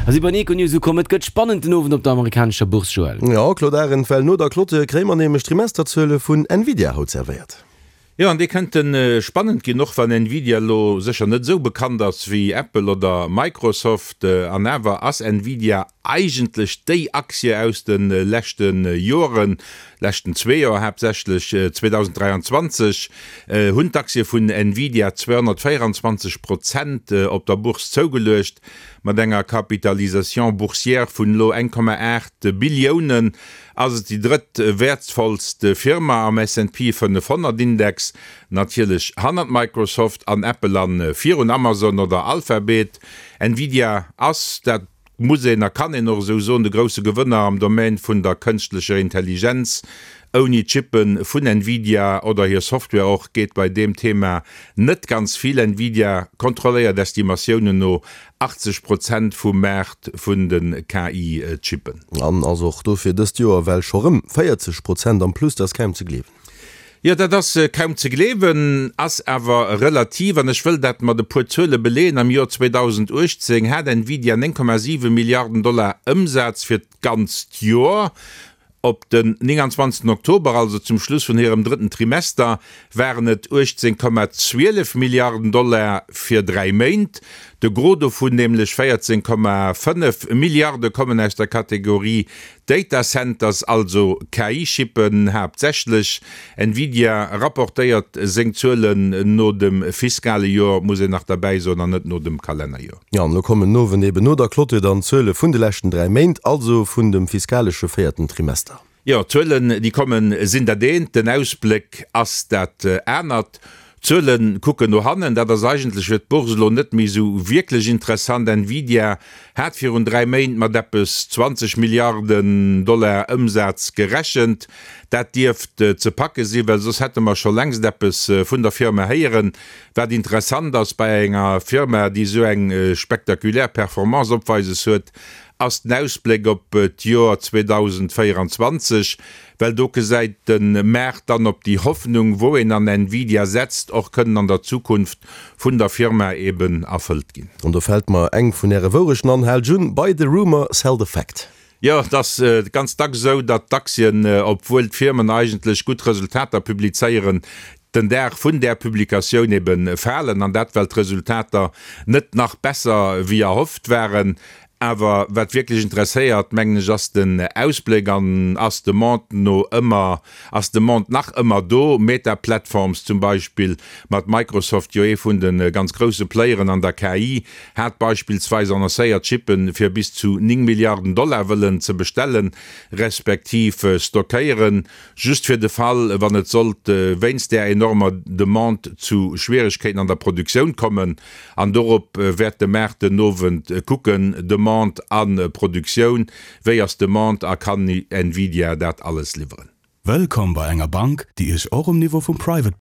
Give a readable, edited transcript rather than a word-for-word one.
A si bei den Econews ukomm. Et gëtt spannend den Owend op der amerikanescher Bourse, Joël. Jo, Claude Arend, well no der Clôture kréie mer nämlech d'Trimesterzuele vun Nvidia haut servéiert. Jo, an déi kënnte spannend ginn, och wann Nvidia elo sécher net esou bekannt ass wéi Apple oder Microsoft. An awer ass Nvidia eigentlech déi Aktie aus de leschte Joren, leschten zwee Joer haaptsächlech. 2023 hunn d'Aktie vun Nvidia 224 Prozent op der Bourse zougeluecht, mat enger Capitalisation boursière vun elo 1,8 Billiounen Ass et déi drëtt wäertvollst Firma am S&P 500 Index, natierlech hannert Microsoft an Apple an virun Amazon oder Alphabet. Nvidia ass, dat muss een a kann een och esou soen, de grousse Gewënner am Domaine vun der kënschtlecher Intelligenz. Ouni d'Chippe vun Nvidia oder hir Software och geet bei deem Thema net ganz vill. Nvidia kontrolléiert Estimatiounen no 80 Prozent vum Maart vun de KI-Chippen. An ass och dofir dëst Joer well scho rëm 40 Prozent am Plus. Dat ass kaum ze gleewen. Jo, dat ass kaum ze gleewen, ass awer relativ. An ech wëll dat mat e puer Zuele beleeën. Am Joer 2018 hat Nvidia 9,7 Milliarden Dollar Ëmsaz fir d'ganzt Joer. Op den 29 Oktober, also zum Schluss vun hirem drëtten Trimester, waren et 18,12 Milliarden Dollar fir dräi Méint. De Gros dovun, nämlech 14,5 Milliarde kommen aus der Kategorie Data Centers, also KI-Chippen haaptsächlech. Nvidia rapportéiert seng Zuelen no dem fiskale Joer, muss een nach derbäi soen, an net no dem Kalennerjoer. Jo, an elo kommen den Owend eben no der Clôture dann d'Zuele vun de leschten 3 Méint, also vun dem fiskalesche véierten Trimester. Jo, d'Zuelen, déi kommen, sinn dat eent, den Ausbléck ass dat anert. D'Zuele kucken no hannen, dat ass eigentlech fir d'Bourse elo net méi esou wierklech interessant. Nvidia hat virun 3 Méint mat eppes 20 Milliarden Dollar Ëmsaz gerechent. Dat dierft ze packe sinn, well soss hätte mer scho längst eppes vun der Firma héieren. Wat interessant ass bei enger Firma, déi esou eng spektakulär Performance opweises huet, ass den Ausbléck op d'Joer 2024, well do gesäit de Maart dann, ob déi Hoffnung, wou een an Nvidia setzt, och kënnen an der Zukunft vun der Firma eben erfëllt ginn. An do fält mer eng vun Äre Wourechten an, Haalt un, Buy the rumor, sell the fact. Jo, et ass ganz dacks esou, datt d'Aktien, obwuel d'Firmen eigentlech gutt Resultater publizéieren, den Dag vun där Publikatioun ebe falen, an dat well d'Resultater net nach besser wéi erhofft waren. Awer wat wierklech interesséiert, mengen ech, ass den Ausbléck an ass d'Demande no ëmmer, ass d'Demande nach ëmmer do? Meta Platforms zum Beispill, mat Microsoft jo ee vun de ganz grousse Playeren an der KI, hat beispillsweis annoncéiert, Chippe fir bis zu 9 Milliarden Dollar wëllen ze bestellen, respektiv stockéieren, just fir de Fall, wann et sollt wéinst där enormer Demande zu Schwieregkeeten an der Produktioun kommen. An dorop wäert de Maart den Owend kucken, Demande a Produktioun, wéi ass d'Demande a kann Nvidia dat alles liwweren? Wëllkomm bei enger Bank, déi Iech och um Niveau vum Private.